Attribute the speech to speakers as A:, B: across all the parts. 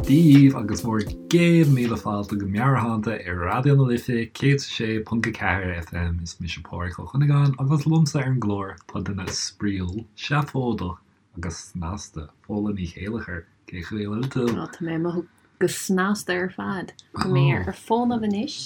A: daoibh agus bhur gcéad míle fáilte go Meabhairshláinte ar Raidió na Life 106.4 FM. Is mise Pádraig Ó Cuinneagáin agus liomsa ar an gclár tá duine spraíúil, seafóideach agus snasta, Fódhla Ní Chéilleachair. Cén chaoi a bhfuil tú?
B: Tá mé ag mothú go snasta ar fad. Tá mé ar fónamh anois,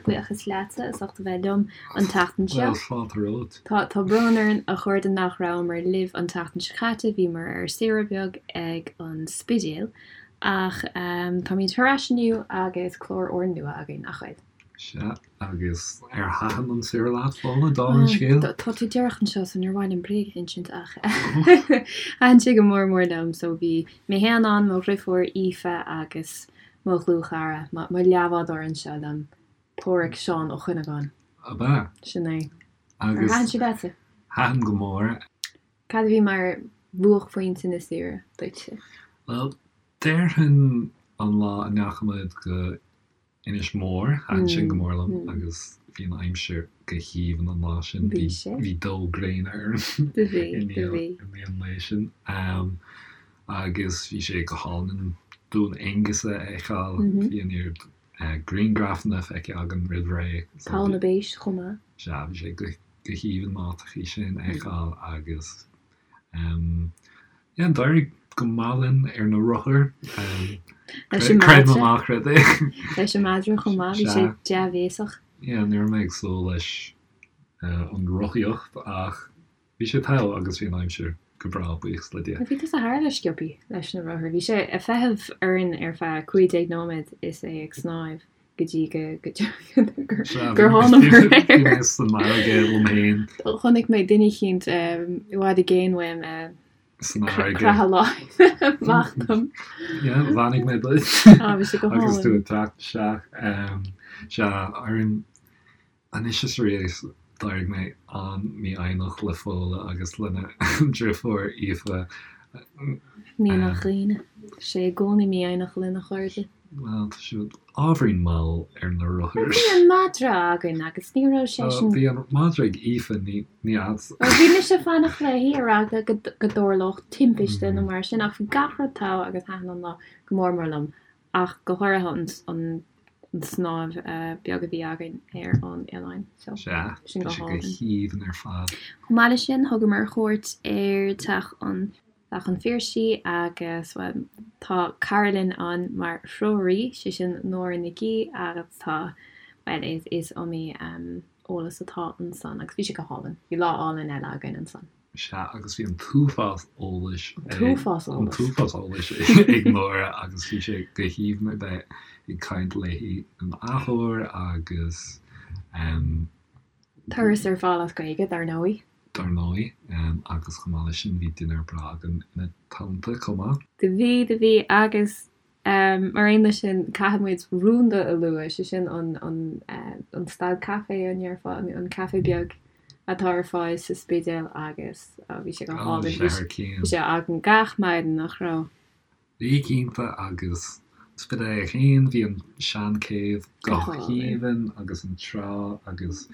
B: buíochas leatsa as ucht a bheith liom an tseachtain seo.
A: Bhuel, fáilte romhat.
B: Tá tá brón orainn a chairde nach rabhamar libh an tseachtain seo caite, bhíomar ar saoire beag ag an Spidéal. Ach táimid thar ais inniu agus clár úrnua againn, nach bhfuil?
A: Sea, agus ar thaitin an saoire leat, Fódhla, dála an scéil?
B: Tá tú díreach anseo so níor mhaith liom bréag a insint ach thaitin sé go mór mór liom. So bhí mé féin ann, mo dhriofúr Aoife agus mo dhlúthchara, mo leathbhádóir anseo liom, Páraic Seán Ó Cuinneagáin.
A: Ab ea?
B: Sin é. Ar thaitin sé leatsa?
A: Thaitin go mór.
B: Cad a bhí mar bhuaicphointe na saoire duitse?
A: Bhuel, déarfainn an lá a ndeachaigh muid go Inis Mór, thaitin sin go mór liom agus bhí an aimsir go haoibhinn an lá sin.
B: Bhí sé.
A: Bhí dó gréine orainn
B: Do bhí,
A: i
B: do
A: ndiaidh
B: bhí.
A: i ndiaidh an lae sin. Agus bhí sé go hálainn Dún Aonghasa a fheiceáil. Bhí an oiread grianghrafanna feicthe againn roimh ré.
B: So Poll na bPéas chomh maith.
A: Sea, bhí sé go go haoibhinn na háiteachaí sin a fheiceáil agus yeah, d'éirigh go maith linn ar na rothair.
B: Leis an
A: Creid nó
B: madra.
A: ná creid é.
B: Leis an madra chomh maith, bhí sé
A: Sea.
B: dea-bhéasach.
A: Yeah, ní raibh mé ag súil leis an rothaíocht ach bhí sé togha agus bhí an aimsir go breá, buíochas le Dia.
B: Bhí tusa thar a bheith sciobthaí leis na rothair. Bhí sé ag feitheamh orainn ar feadh 15 nóiméad is é ag snámh. go dtí go gur thánamar air.
A: Bhí mé san fharraige liom féin.
B: Chonaic mé duine eicínt i bhfad i gcéin uaim
A: San fharraige.
B: Croitheadh láimhe amach dom.
A: Yeah, bheannaigh mé duit.
B: Á, bhí sé go hálainn.
A: Agus tú ag teacht isteach. Sea, ar Anois is arís, d'éirigh mé an-mhífhoighneach le Fódhla agus lena driofúr Aoife.
B: Ní nach ionadh. Sé i gcónaí mífhoighneach lena chairde.
A: Bhuel, tá siad ábhairín mall ar na rothair.
B: Bhí an madra againn agus ní raibh seisean.
A: Bhí an madra ag Aoife, ní agatsa.
B: Bhuel, bhí mise ag fanacht léi ar eagla go dtarlódh timpiste nó mar sin ach bhí gach rud togha agus thaitin an lá go mór mór liom ach go háirithe an an snámh beag a bhí againn ar an oileán. So,
A: Sea,
B: sin
A: bhí
B: go
A: sé go
B: hálainn.
A: haoibhinn ar fad.
B: Chomh maith leis sin, thugamar cuairt ar Teach an Teach an Phiarsaigh agus, bhuel, tá cara linn ann mar threoraí, sé sin Nóra Nic Aoidh agus tá, bhuel, is is iomaí eolas atá ansan agus bhí sé go hálainn. Bhí lá álainn eile againn ansan.
A: Sea, agus bhí an t-uafás eolais
B: An t-uafás
A: an
B: eolais.
A: t-uafás eolais ag Nóra agus bhí sé go haoibhinn a bheith ag caint léi an athuair agus em.
B: Turas ar fáil as Gaeilge, dar ndóigh.
A: Dar ndóigh, agus chomh maith leis sin bhí dinnéar breá againn ina teannta chomh maith.
B: Do bhí, do bhí agus Mar aon leis sin, caithfidh muid Rúnda a lua, sé sin an stad caife, an ndéarfá, an caife beag atá ar fáil sa Spidéal agus bhí sé go hálainn. Bhí sé againn gach maidin, nach raibh?
A: Bhí cinnte agus Spidéal é féin, bhí an seanchéibh go haoibhinn agus an trá agus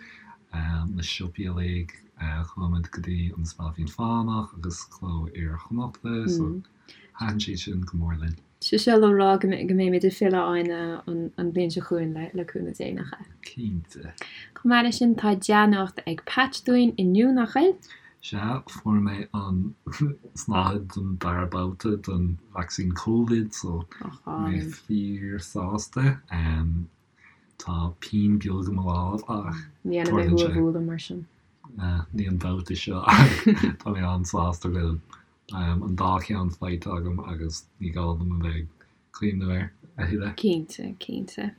A: na siopaí uilig. Chuaigh muid go dtí an Spailpín Fánach agus Cló Iar-Chonnachta so Thaitin siad sin go mór linn.
B: Sé seo le rá go mbeimid ag filleadh ann an bhliain seo chugainn le cúnamh Dé, nach ea?
A: Cinnte.
B: Chomh maith leis sin, tá dea-nuacht ag Patch dúinn inniu, nach bhfuil?
A: Sea, fuair mé an tsnáthaid don dara babhta den vacsaín Covid, so tá mé fíor-sásta. Tá pian beag i mo lámh ach
B: Ní dhéanfaidh mé
A: tarlaíonn
B: thú a
A: sé.
B: bhualadh mar sin.
A: Ní an babhta seo ach tá mé an-sásta go bhfuil an dá cheann faighte agam agus ní gá dom a bheith ag cuimhneamh air a thuilleadh.
B: Cinnte, cinnte.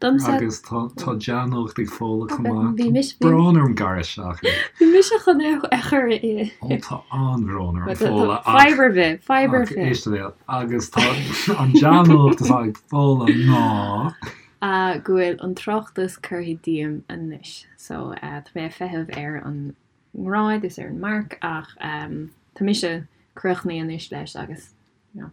B: Domsa.
A: Agus tá tá dea-nuacht ag Fódhla chomh maith.
B: Bhí mise.
A: Tá brón orm gearradh isteach ort.
B: Bhí mise chun é a chur i.
A: Ó tá an-bhrón orm Fódhla ach.
B: Fadhb ar bith, fadhb ar bith.
A: Éist le agus tá an dea-nuacht atá ag Fódhla ná.
B: Go bhfuil an tráchtas curtha díom anois. So tá mé ag feitheamh ar an ngrád is ar an marc ach tá mise críochnaithe anois leis agus you know,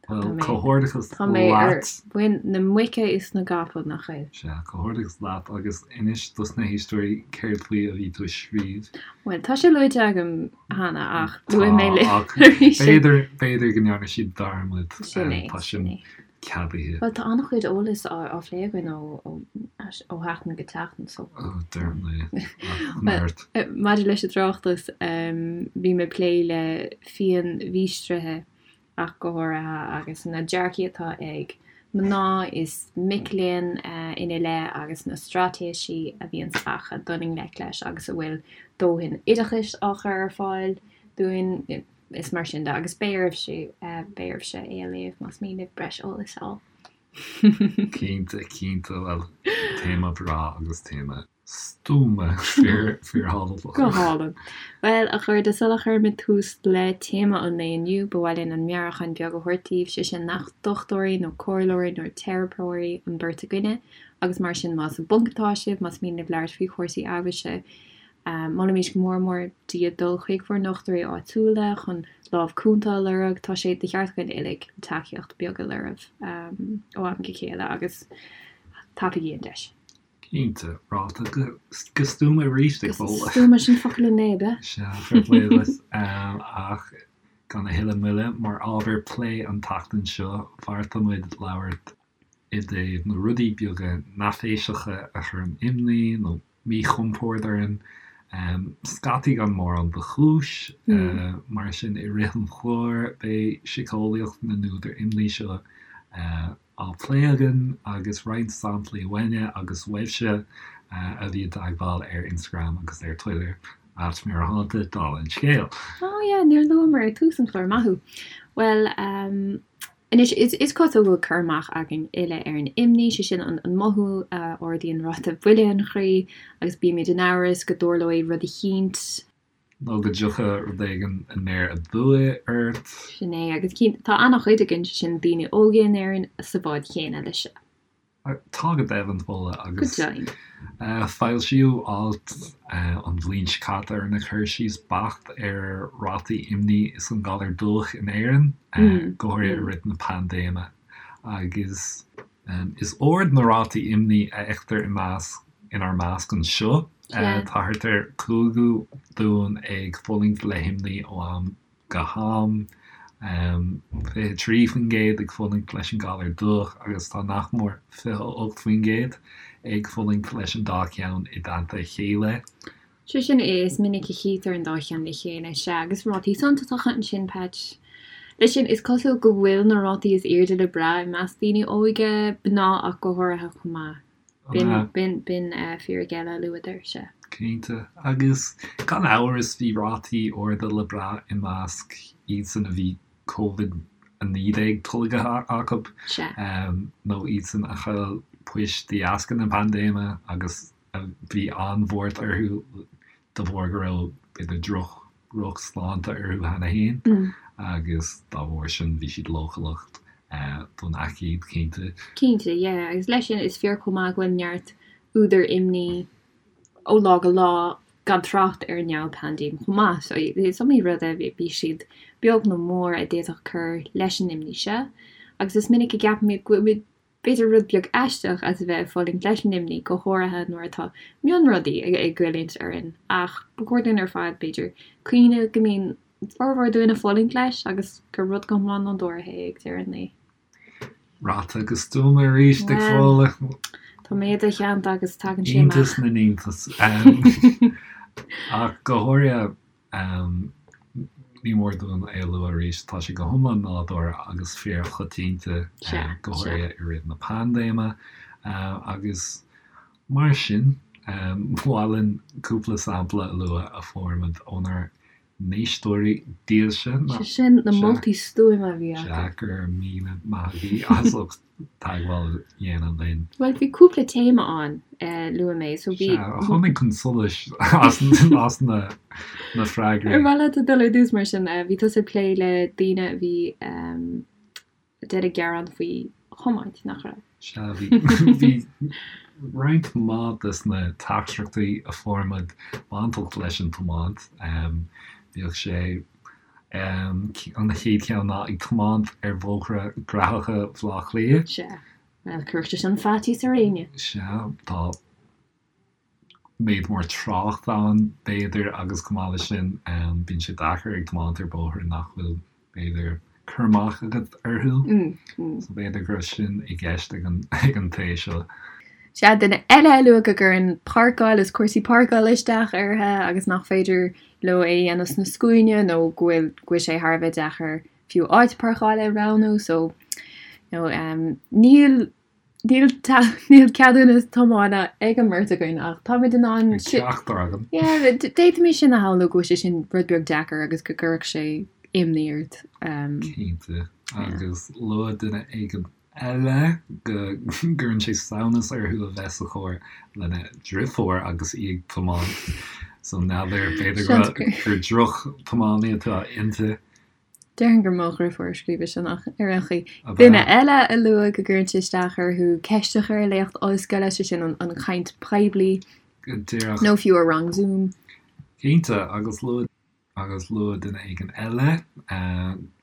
A: Bhuel, comhghairdeachas
B: Tá mé ar
A: leat.
B: mhuin na muice is na gcapall, nach bhfuil?
A: Sea, comhghairdeachas leat agus inis dos na héisteoirí céard faoi a bhí tú ag scríobh.
B: Bhuel, tá sé luaite agam cheana ach
A: Tá,
B: luafaidh mé libh
A: ach
B: arís é.
A: b'fhéidir, b'fhéidir go ndearna siad dearmad.
B: Sin é,
A: Tá
B: sin
A: sin
B: é.
A: ceadaithe.
B: Bhuel, tá an-chuid eolais á phlé againn ó sheachtain go seachtain, so.
A: Ó, deirim é, ach
B: Bhuel,
A: neart.
B: maidir leis an tráchtas, bhí mé ag plé le phianmhíostraithe ach go háirithe, agus na dearcaí atá ag mná is mic léinn ina leith agus na straitéisí a bhíonns acu dul i ngleic leis agus an bhfuil dóthain oideachais á chur ar fáil dúinn is mar sin de agus beidh oraibhse, beidh oraibhse é a léamh más mian libh breis eolais a fháil.
A: Cinnte, cinnte, bhuel, téama breá agus téama. Stuama, fíorthábhachtach.
B: Go hálainn. Bhuel, a chairde, sula chuirimid tús le téama an lae inniu, ba mhaith linn an meabhrúchán beag a thabhairt daoibh, sé sin nach dochtúirí nó comhairleoirí nó teiripeoirí an bheirt againne, agus mar sin más i bponc atá sibh, más mian libh labhairt faoi chúrsaí amhrais, molaimid go mór mór daoibh dul chuig bhur ndochtúirí áitiúla chun lámh cúnta a lorg. Tá sé de cheart againn uilig tacaíocht beag a lorg ó am go chéile agus tapaígí an deis.
A: Cinnte, ráite go stuama arís ag Fódhla.
B: Go stuama, sin focal an lae, ab ea?
A: Sea, fair play duit. Ach gan a thuilleadh moille, mar ábhar plé an tseachtain seo, bheartaigh muid labhairt i dtaobh na rudaí beaga neafaiseacha a chuireann imní nó míchompord orainn, scaití gan mórán de chúis. Mar sin, i rith an chláir, beidh síceolaíocht na n-údar imní seo á plé againn agus roinnt samplaí uainne agus uaibhse a bhí i dteagmháil ar Instagram agus ar Twitter, @Meabhairshláinte, dála an scéil.
B: Oh yeah, níor luamar ag tús an chláir, maith thú. Bhuel, ehm, anois, is, is cosúil go bhfuil cur amach againn uile ar an imní, sé sin an, an mothú a ardaíonn ráta buile an chroí agus bímid in amhras go dtarlóidh rud eicínt,
A: Nó go dtiocfaidh rud éigin aniar aduaidh ort.
B: Sin é, agus cinnte, tá an-chuid againn, sé sin daoine óga in Éirinn, sa bhád chéanna leis seo.
A: Tá go deimhin, Fódhla, agus
B: Go deimhin.
A: foilsíodh alt an bhliain seo caite a rinne cur síos beacht ar rátaí imní is an galar dubhach in Éirinn, go háirithe i rith na paindéime, agus Is ard na rátaí imní a fheictear i measc inár measc anseo. Tá thart ar chúigiú dúinn ag fulaingt le himní ó am go ham, 23% ag fulaingt leis an galar dubhach agus tá nach mór 28% ag fulaingt leis an dá cheann i dteannta a chéile.
B: Sé sin, is minic a chítear an dá cheann le chéile, sea, agus rátaí suntasacha ansin, Patch. Leis sin, is cosúil go bhfuil na rátaí is airde le brath i measc daoine óga, mná ach go háirithe chomh maith. B'in, b'in, b'in fíric eile a luadar, sea.
A: Cinnte. Agus gan amhras bhí rátaí arda le brath i measc iadsan a bhí Covid-19 tolgtha acu, nó iadsan a chaill poist de dheasca na paindéime agus a bhí an-bhuairt orthu de bharr go raibh, b'fhéidir, droch, drochshláinte orthu cheana féin agus dá bharr sin bhí siad leochaileach don aicíd, cinnte.
B: Cinnte, yeah, agus leis sin is fíor chomh maith go bhfuil neart údar imní ó lá go lá gan trácht ar an ndomhainphaindéim chomh maith. So is iomaí rud a bhí siad beag nó mór a d'fhéadfadh cur leis an imní seo agus is minic a gceapaimid go bhfuilimid b'fhéidir rud beag aisteach as a bheith ag fulaingt leis an imní, go háirithe nuair atá mionrudaí ag goilliúint orainn, ach ba chóir dúinn ar fad, b'fhéidir, cuimhneamh go mbíonn formhór dúinn ag fulaingt leis agus gur rud go hiomlán nádúrtha é ag deireadh an lae.
A: Ráite go stuama arís ag Fódhla.
B: Tá mé i do theannta agus tagann sé amach.
A: Iontas na n-iontas. Ach go háirithe Ní mór dúinn é a lua arís, tá sé go hiomlán nádúrtha agus fíorchoitianta, go háirithe i rith na paindéime, agus mar sin, ba mhaith linn cúpla sampla a lua a fuair muid ónár n-éisteoirí dílse.
B: Sé sin, na moltaí stuama a bhí acu.
A: Sea, go raibh míle maith agaibh as ucht teagmháil a dhéanamh linn.
B: Bhuel, bhí cúpla téama ann, luaigh mé, so bhí.
A: Sea, a tháinig chun solais as na na freagraí.
B: Ar mhaith leat dul ar dtús mar sin? Bhí tusa ag plé le daoine a bhí ag déanamh gearán faoi thiomáint, nach raibh?
A: Sea, bhí bhí roinnt mhaith des na teachtaireachtaí a fuair muid bainteach leis an tiomáint. Bhíodh sé. An chéad cheann ná ag tiomáint ar bhóithre graitheacha Bhaile Átha Cliath.
B: Sea. Bhuel, cuirfeadh sé sin faitíos ar éinne.
A: Sea, tá méid mór trácht ann, b'fhéidir, agus chomh maith leis sin, bíonn sé deacair ag tiomáint ar bóithre nach bhfuil, b'fhéidir, cur amach agat orthu. So b'fhéidir go raibh sin i gceist ag an ag an té seo.
B: Sea, duine eile a luaigh go gcuireann páirceáil is cúrsaí páirceála isteach orthu agus nach féidir leo é a dhéanamh sna scuaine nó go bhfuil go bhfuil sé thar a bheith deacair fiú áit páirceála a roghnú so you know, níl Níl níl ceadúnas tiomána ag an mbeirt againn ach táimid in ann
A: Ag ceachtar againn.
B: Yeah, d'fhéadfaimis sin a shamhlú go bhfuil sé sin rud beag deacair agus go gcuirfeadh sé imní ort.
A: Cinnte. Agus luaigh duine éigin eile go gcuireann sé samhnas orthu a bheith sa charr lena driofúr agus í ag tiomáint. So n'fheadar, b'fhéidir gur droch-tiománaí atá inti.
B: Déarfainn gur mo dhriofúr a scríobh sin ach ar aon chaoi. Duine eile a luaigh go gcuireann sé isteach orthu ceist a chur i léacht ollscoile, sé sin an chaint poiblí
A: Go díreach.
B: nó fiú i rang Zoom.
A: Cinnte, agus luaigh agus luaigh duine éigin eile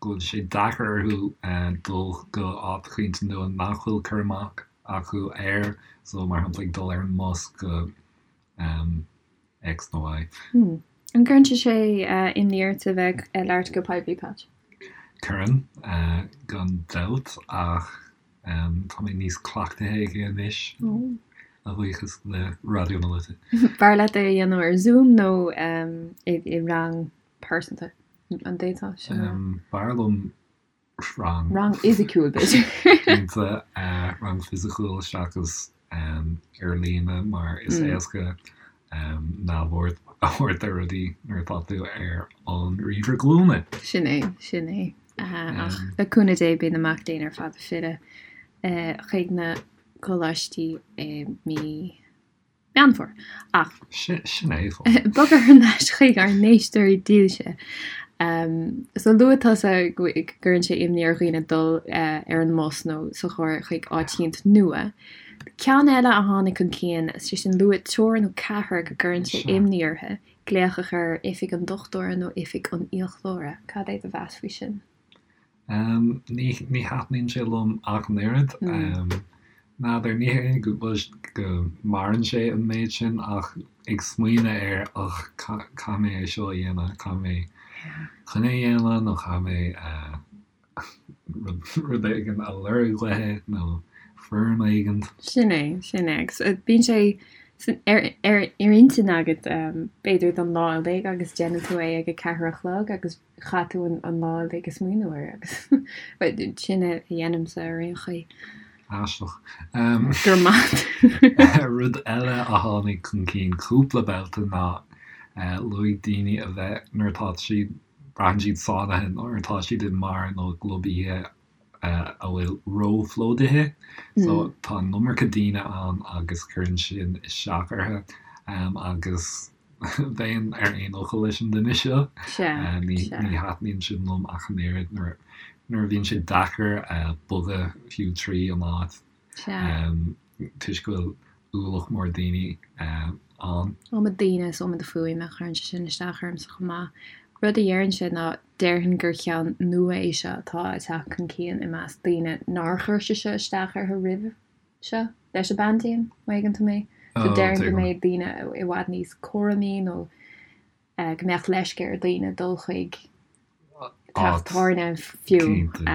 A: go bhfuil sé deacair orthu dul go áit eicínt nua nach bhfuil cur amach acu air, so mar shampla ag dul ar an mbus go X nó
B: Y. An gcuireann sé imní ort a bheith ag labhairt go poiblí, Pat?
A: Cuireann, gan dabht, ach tá mé níos cleachtaithe aige anois, a bhuíochas le Raidió na Life.
B: B'fhearr leat é a dhéanamh ar Zoom nó i rang pearsanta? An
A: d'fhéadfá sin a rá? B'fhearr liom rang.
B: Rang fhisiciúil, b'fhéidir.
A: Cinnte, rang fisiciúil seachas ar líne mar is éasca neamhaird a thabhairt ar rudaí nuair atá tú ar an ríomhaire glúine.
B: Sin é, sin é. Ach le cúnamh Dé beidh na mac léinn ar fad ag filleadh chuig na coláistí i mí Meán Fómhair. Ach.
A: Sin é.
B: Bogadh thar n-ais chuig ár n-éisteoirí dílse. So luaigh tusa go gcuireann sé imní ar dhaoine dul ar an mbus nó sa charr chuig áit eicínt nua. Ceann eile a tháinig chun cinn, sé sin luaigh triúr nó ceathrar go gcuireann sé imní orthu glaoch a chur ar oifig an dochtúra nó oifig an fhiaclóra. Cad é do mheas faoi sin?
A: Ní thaitníonn sé liom ach an oiread. N'fheadar, ní hé go go maireann sé an méid sin ach ag smaoineamh air och caithfidh mé é seo a dhéanamh, caithfidh mé coinne a dhéanamh nó caithfidh mé rud éigin a lorg uaithi nó foirm éigin.
B: Sin é, sin é. Agus bíonn sé ar ar intinn agat b'fhéidir don lá uilig agus déanann tú é ag a ceathair a chlog agus chaith tú an lá uilig ag smaoineamh air agus sin a dhéanaimse ar aon chaoi.
A: Aisteach.
B: Go raibh maith.
A: Rud eile a tháinig chun cinn cúpla babhta ná luaigh daoine a bheith nuair atá siad, braitheann siad sáinnithe nuair atá siad i mbeár nó i gclub oíche a bhfuil róphlódaithe. So tá an iomarca daoine ann agus cuireann sin isteach orthu agus bheinn ar aon fhocal leis an duine seo. Ní thaitníonn sin liom ach an oiread nuair a bhíonn sé deacair bogadh fiú trí an áit toisc go bhfuil ualach mór daoine ann.
B: Iomad daoine is iomad fuaime, cuireann sé sin isteach ormsa chomh maith. Rud a déarfainnse ná déarfainn gur ceann nua é seo atá ag teacht chun cinn i measc daoine nár chuir sé seo isteach orthu roimhe seo leis an bpaindéim, má thuigeann tú mé. So déarfainn go mbeidh daoine i bhfad níos cúramaí nó go mbeadh leisce ar dhaoine dul chuig teach tábhairne fiú de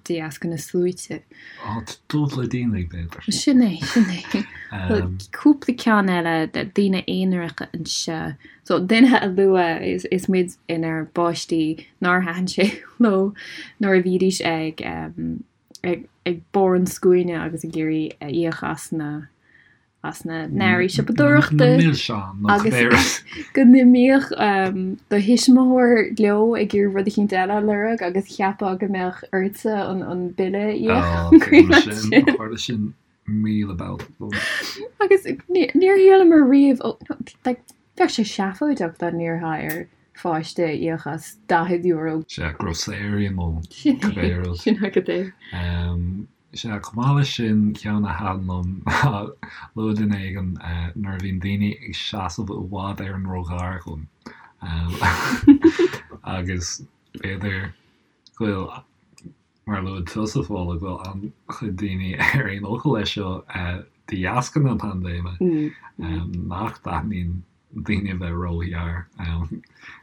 B: dheasca na sluaite.
A: Áit dubh le daoine, b'fhéidir.
B: Sin é, sin é. Cúpla ceann eile, daoine aonaracha anseo. So duine a luaigh is, is muid inár bpáistí nár thaitin sé leo nuair a bhídís ag, ag, ag barr an scuaine agus ag iarraidh íoc as na, as na n-earraí siopadóireachta.
A: Na milseáin nó
B: agus cibé rud. go n-imíodh do thuismitheoir leo ag iarraidh rud eicínt eile a lorg agus cheapfá go mbeadh ortsa an, an bille a
A: íoc. Ó, tuigim sin, tharla sin 1000 babhta dom.
B: Agus níor shíleamar riamh, ó, like, bheadh sé seafóideach dá n-iarrfá ar pháiste íoc as €40.
A: Sea, grocery nó cibé rud.
B: Sin agat é.
A: Sea, chomh maith leis sin, ceann a thaitin liom ná luaigh duine éigin nuair a bhíonn daoine ag seasamh i bhfad ar an rothdharchlann agus. B'fhéidir go bhfuil, mar a luaigh tusa, Fódhla, go bhfuil an-chuid daoine ar aon fhocal leis seo de dheasca na paindéime, nach dtaitníonn daoine a bheith róghar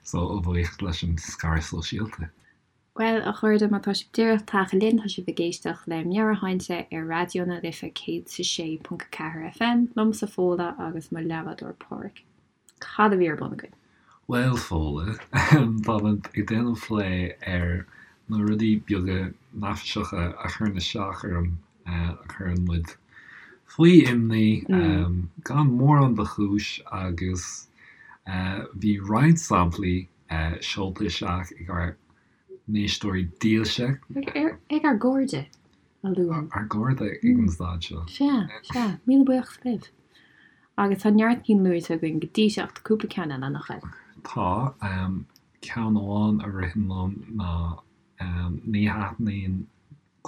A: so a bhuíochas leis an scaradh sóisialta.
B: Bhuel, a chairde, má tá sibh díreach tagtha linn, tá sibh ag éisteacht le Meabhairshláinte ar Raidió na Life 106.4 FM, liomsa Fódhla agus mo leathbhádóir Páraic. Cad a bhí ar bun againn?
A: Bhuel, Fódhla, táimid ag déanamh plé ar na rudaí beaga neafaiseacha a chuireann isteach orm, a chuireann muid faoi imní, gan mórán de chúis agus bhí roinnt samplaí seolta isteach ag ár n-éisteoirí dílse.
B: Ag ár gcairde,
A: a luaim. Ár gcairde ag an staid seo.
B: Sea, sea. Míle buíochas libh. Agus tá neart cinn luaite againn go dtí seo ach tá cúpla ceann eile, nach bhfuil?
A: Tá. Ceann amháin a ritheann liom ná ní thaitníonn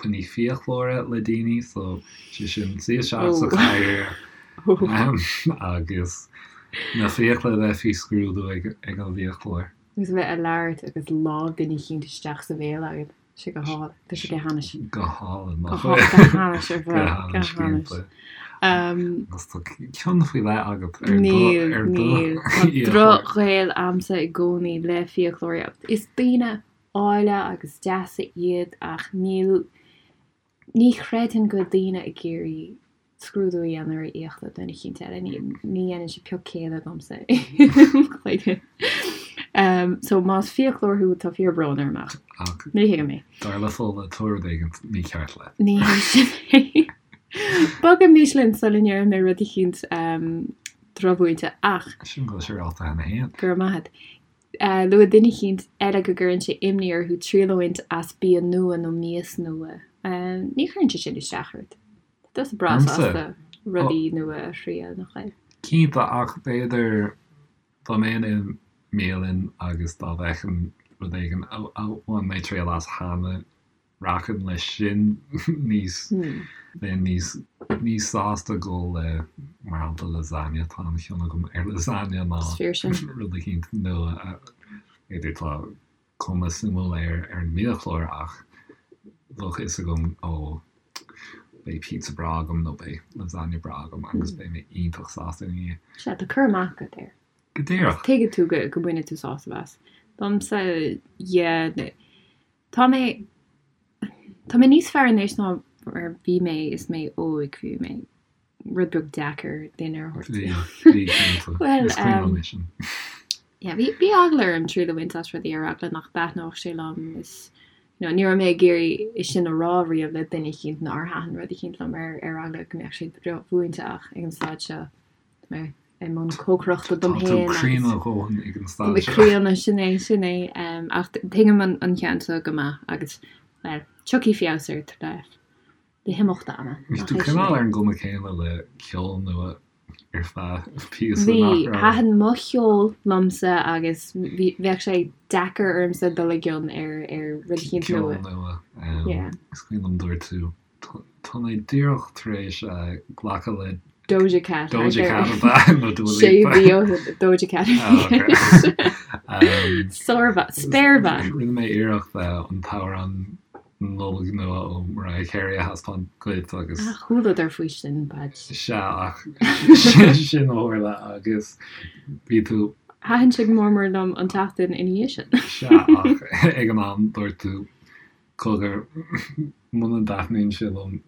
A: coinní fiaclóra le daoine, so sé sin suí isteach sa chathaoir agus na fiacla a bheith faoi scrúdú ag an bhfiaclóir.
B: Agus a bheith ag labhairt agus lámh duine eicínt isteach sa bhéal agat. Tá sé go hálainn. Tá sé go hainnis.
A: Go hálainn, nach bhfuil? Go hainnis ar fad. Go hainnis, cinnte. Agus tá cion faoi leith agat ar do
B: Níl, níl. Tá drochghaol a'msa i gcónaí le fiaclóirí. Is daoine áille agus deasa iad ach níl, ní chreidfinn go bhfuil daoine ag iarraidh scrúdú a dhéanamh ar fhiacla duine eicínt eile, ní dhéanann sé pioc céille domsa i mo chloigeann. So más fiaclóir thú tá fíor brón orm ach ní thuigim
A: é. Dar le Fódhla tá rud éigin mícheart
B: leat. Ní hé sin é. Bogaimis linn sula ndéarfaidh mé rud eicínt drochmhúinte ach.
A: Sin go bhfuil sé ráite cheana féin.
B: Go raibh maith agat. Luaigh duine eicínt eile go gcuireann sé imní orthu triail a bhaint as bia nua nó mias nua. Ní chuireann sé sin isteach ort. Tá tusa breá sásta rudaí nua a thriail, nach bhfuil?
A: Cinnte, ach b'fhéidir dá mbeinn i mbialann agus dá bhfeicfinn rud éigin a bhain mé triail as cheana, Rachainn leis sin níos, bheinn níos, níos sásta dul le, mar shampla, lasagna, tá an-chion agam ar lasagna ná rud eicínt nua a, b'fhéidir tá cuma suimiúil air ar an mbiachlár ach bheadh a fhios agam ó beidh pizza breá agam nó beidh lasagna breá agam agus beidh mé iontach sásta ina
B: dhiaidh. Sea, tá cur amach agat air.
A: Go díreach.
B: Tuigeann tú go, go mbainfidh tú sásamh as. Domsa, yeah, Tá mé, tá mé níos fearr anois ná mar bhí mé is mé óg, bhí mé rud beag deacair duine a thabhairt.
A: Bhí, bhí cinnte.
B: Bhuel,
A: Is cuimhin liom é sin.
B: yeah, bhí, bhí eagla orm triail a bhaint as rudaí ar eagla nach dtaitneodh sé liom is, you know, ní raibh mé ag iarraidh é sin a rá riamh le duine eicínt nár thaitin rud eicínt liom ar, ar eagla go mbeadh sé drochmhúinte ach ag an staid seo, tá mé i mbun cócaireachta dom
A: féin. Tá tú críonna a dhóthain ag an
B: staid seo. Críonna, sin é, sin é. Ach tuigim an ceann seo go maith agus, bhuel, tiocfaidh feabhas air le le himeacht ama.
A: Bhí tú cineál ar an gcuma céanna le ceol nua ar feadh píosa,
B: nach raibh? Bhí, thaitin mo cheol liomsa agus bhí, bheadh sé deacair ormsa dul i gcion ar ar rud eicínt
A: nua. Ceol nua. Is cuimhin liom dúirt tú Tá mé díreach tar éis glacadh le
B: Doja Cat.
A: Doja Cat ab ea nó
B: Dua Lipa? Sé mhí ó shin Doja Cat a bhí i gceist. Sármhaith. Spéirbhean.
A: Rinne mé iarracht an t-amhrán Nollag nua ó Mariah Carey a thaispeáint duit agus.
B: Ah, chualadar faoi sin, Padge.
A: Sea, ach sin a tharla agus bhí tú.
B: Thaitin sé go mór mór liom an tseachtain ina dhiaidh sin.
A: Sea, ach ag an am dúirt tú Cogar, muna dtaitníonn sé liom,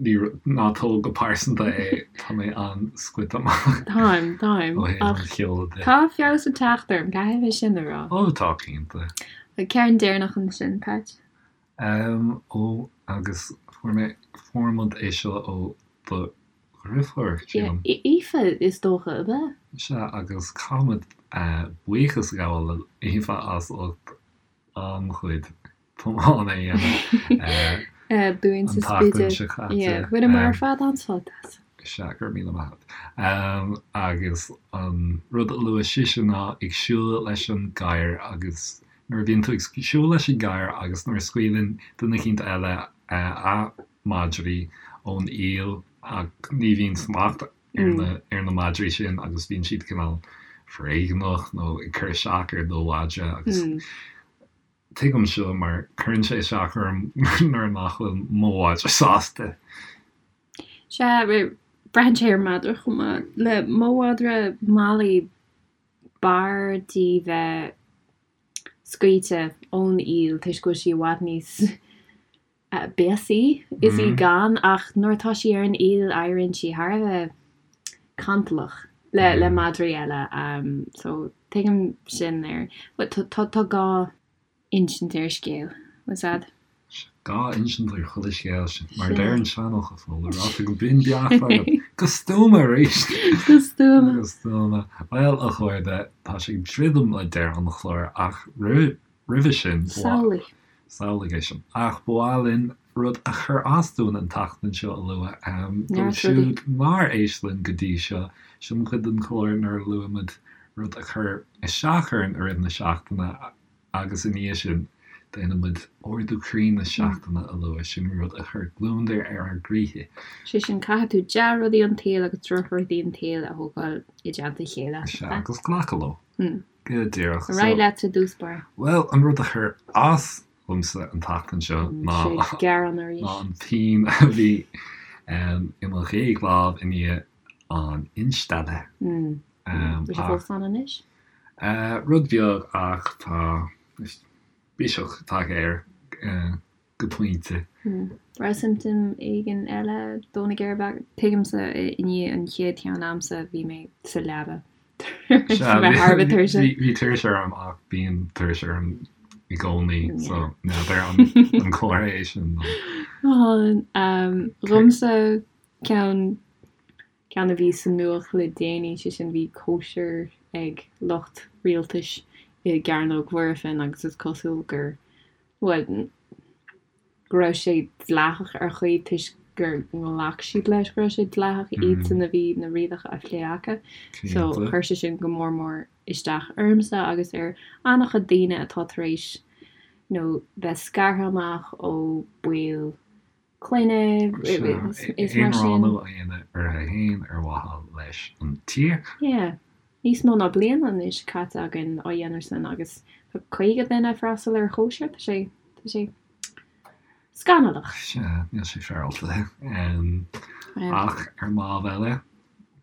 A: ní, ná tóg go pearsanta é, tá mé an-scoite amach.
B: Táim, táim.
A: Ó thaobh an cheoil
B: de. Tá feabhas ag teacht orm, caithfidh mé sin a rá.
A: Ó, tá, cinnte.
B: An ceann deireanach ansin, Patch?
A: Ó, agus fuair mé, fuair muid é seo ó do dheirfiúr,
B: sílim. Aoife, is dócha, ab ea?
A: Sea, agus caithfimid buíochas a ghabháil le Aoife as ucht an-chuid tiomána a
B: dhéanamh
A: dúinn
B: sa Spidéal. Bhaineamar ar fad an-sult
A: as. Sea, go raibh míle maith agat. Agus an rud a luaigh sise ná ag siúl leis an gadhar agus nuair a bhíonn tú ag siúl leis an gadhar agus nuair a scaoileann duine eicínt eile a madraí ón iall ach ní bhíonn smacht ar na ar na madraí sin agus bíonn siad cineál foréigneach nó ag cur isteach ar do mhadra agus. Tuigim seo mar cuireann sé isteach orm nuair nach bhfuil mo mhadra sásta.
B: Sea, braitheann sé ar an madra chomh maith. Le mo mhadra Molly, b'fhearr di bheith scaoilte ón iall toisc go bhfuil sí i bhfad níos béasaí is í gan ach nuair atá sí ar an iall éiríonn sí thar a bheith cantalach le le madraí eile so tuigim sin ar tá tá gá insint ar scéal was that?
A: Gá insint ar chuile scéal sin mar a deir an seanfhocal Fódhla ráite go binn beacht agat go stuama arís!
B: Go stuama!
A: Go stuama. Bhuel a chairde tá sé ag druidim le deireadh an chláir ach roimh Roimhe sin, ba.
B: Samhlaigh.
A: Samhlaigh é sin. Ach ba mhaith linn rud a chuir as dúinn an tseachtain seo a lua. Dóibh siúd nár éist linn go dtí seo, sin an chuid den chlár nuair a luaimid rud a chuir isteach orainn i rith na seachtaine agus i ndiaidh sin déanaimid ardú croí na seachtaine a lua, sin rud a chuir gliondar ar ár gcroíthe.
B: Sé sin, caithfidh tú dea-rudaí an tsaoil agus drochrudaí an tsaoil a thógáil i dteannta a chéile.
A: Sea, agus glacadh leo. Go díreach.
B: Ar aghaidh leat i dtús báire.
A: Bhuel, an rud a chuir as domsa an tseachtain seo ná ná an phian a bhí i mo ghéag lámh i ndiaidh an instealladh.
B: Bhfuil sé fós ann anois?
A: Rud beag ach tá biseach tagtha air. go pointe.
B: Raibh siomptóim éigin eile dó na géire? Tuigimse i ndiaidh an chéad cheann a'msa bhí mé sa leaba
A: tar éis a bheith thar a bheith tuirseach. Bhí tuirse orm ach bíonn tuirse orm i gcónaí so n'fheadar an comhartha é sin
B: nó. Dhomsa ceann ceann a bhí sa nuacht le déanaí, sé sin bhí cóisir ag lucht rialtais i gCearnóg Mhuirfean agus is cosúil gur bhuel, go raibh sé dleathach ar chaoi toisc gur ghlac siad leis go raibh sé dleathach, iadsan a bhí na rialacha á phlé acu. So chuir sé sin go mór mór isteach ormsa agus ar an-chuid daoine atá tar éis you know bheith scartha amach ó baill clainne
A: is mar sin. Aonránú a dhéanamh orthu féin ar mhaithe leis an tír.
B: Yeah. Níos mó ná bliain anois caite againn á dhéanamh sin agus tá 50 duine ag freastal ar chóisir, tá sé, tá sé scannalach.
A: Sea, níl sé féaráilte. Ach ar an lámh eile,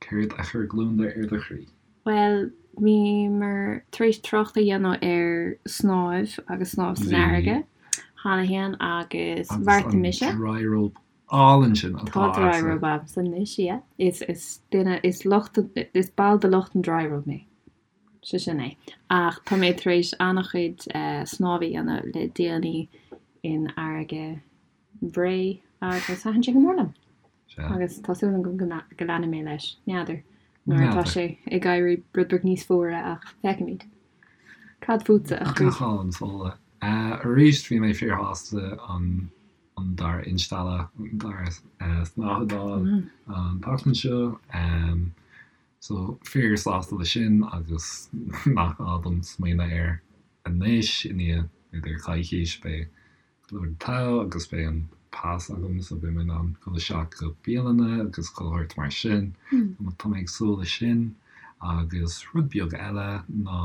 A: céard a chuir gliondar ar do chroí?
B: Bhuel, bhíomar tar éis trácht a dhéanamh ar snámh agus snámh san fharraige cheana féin agus bheartaigh mise.
A: Agus an dryrobe álainn sin
B: atá agatsa. Tá dryrobe agamsa anois, yeah. Is, is duine, is lucht, is ball de lucht an dryrobe mé. Sé sin é. Ach tá mé tar éis an-chuid snámh a dhéanamh le déanaí in fharraige Bhré agus thaitin sé go mór liom. Agus tá súil agam go leanfaidh mé leis. N'fheadar nuair atá sé ag éirí rud beag níos fuaire ach feicfimid. Cad fútsa, a
A: chroí? Go hálainn, Fódhla. Arís bhí mé fíorshásta an an dara instealladh, an dara snáthaid a fháil an tseachtain seo. So fíorshásta leis sin agus nach gá dom smaoineamh air anois i ndiaidh b'fhéidir coicís beidh go leor togha agus beidh an pas agam so beidh mé in ann dul isteach go bialanna agus chuile shórt mar sin. Tá mé ag súil leis sin. Agus rud beag eile ná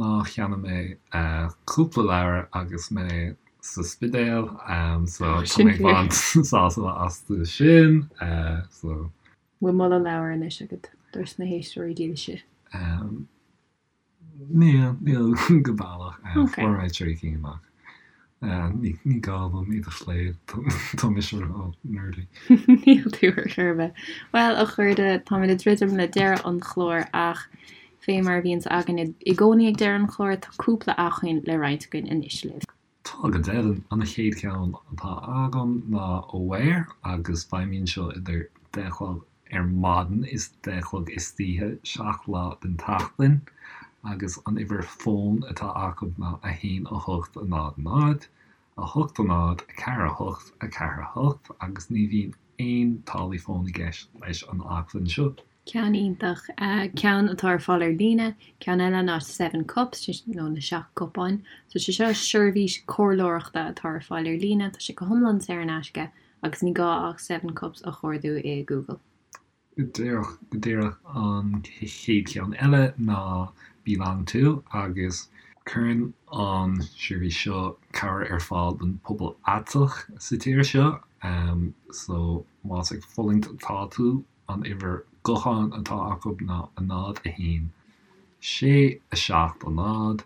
A: ná cheannaigh mé cúpla leabhar agus mé sa Spidéal so tá mé ag baint sásamh astu sin
B: so. Bhfuil moladh leabhar anois agat dos na héisteoirí dílse?
A: Níl, níl go baileach. Fuair mé 3 cinn amach. Ní gá dom iad a phlé, tá mise ró-nerdy.
B: Níl tú ar chor ar bith. Bhuel, a chairde, táimid ag druidim le deireadh an chláir ach fé mar a bhíonns againn i gcónaí ag deireadh an chláir, tá cúpla acmhainn le roinnt againn anois libh.
A: Tá go deimhin. An chéad cheann atá agam ná Aware agus feidhmíonn seo idir 10 a chlog ar maidin is 10 a chlog istoíche, 7 lá den tseachtain, agus an uimhir fóin atá acu ná 1 8 0 0 8 0 4 8 4 8 agus ní bhíonn aon táillí fóin i gceist leis an acmhainn seo.
B: Ceann iontach. Ceann atá ar fáil ar líne. Ceann eile ná Seven Cups, nó na Seacht gCupán. So sé seo seirbhís comhairleoireachta atá ar fáil ar líne. Tá sé go hiomlán saor in aisce agus ní gá ach Seven Cups a chuardú i Google.
A: Go díreach, go díreach. An chéad cheann eile ná BeLonG To agus. Cuireann an seirbhís seo cabhair ar fáil don pobal aiteach sa tír seo, so más ag fulaingt atá tú, an uimhir gutháin atá acu ná 0, 1, 6, 7, 0,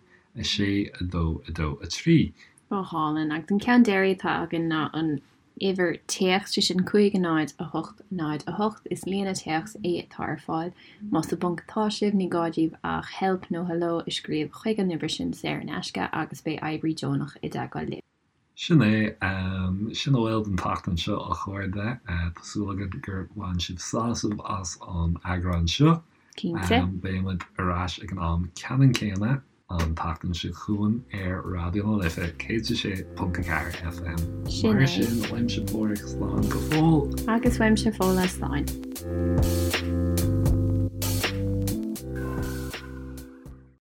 A: 6, 2, 2, 3.
B: Go hálainn. Agus an ceann deiridh atá againn ná an uimhir téacs, sé sin 5 0 8 0 8. Is líne téacs é atá ar fáil. Más i bponc atá sibh, ní gá daoibh ach help nó hello a scríobh chuig an uimhir sin saor in aisce agus beidh oibrí deonach i dteagmháil libh.
A: Sin é. Sin a bhfuil don tseachtain seo, a chairde. Tá súil againn gur bhain sibh sásamh as an eagrán seo.
B: Cinnte.
A: Beidh muid ar ais ag an am ceannann céanna an tseachtain seo chugainn ar Raidió na Life 106.4 FM.
B: Sin
A: Mar
B: é.
A: sin, uaimse Páraic, slán go fóill.
B: Agus uaimse Fódhla, slán.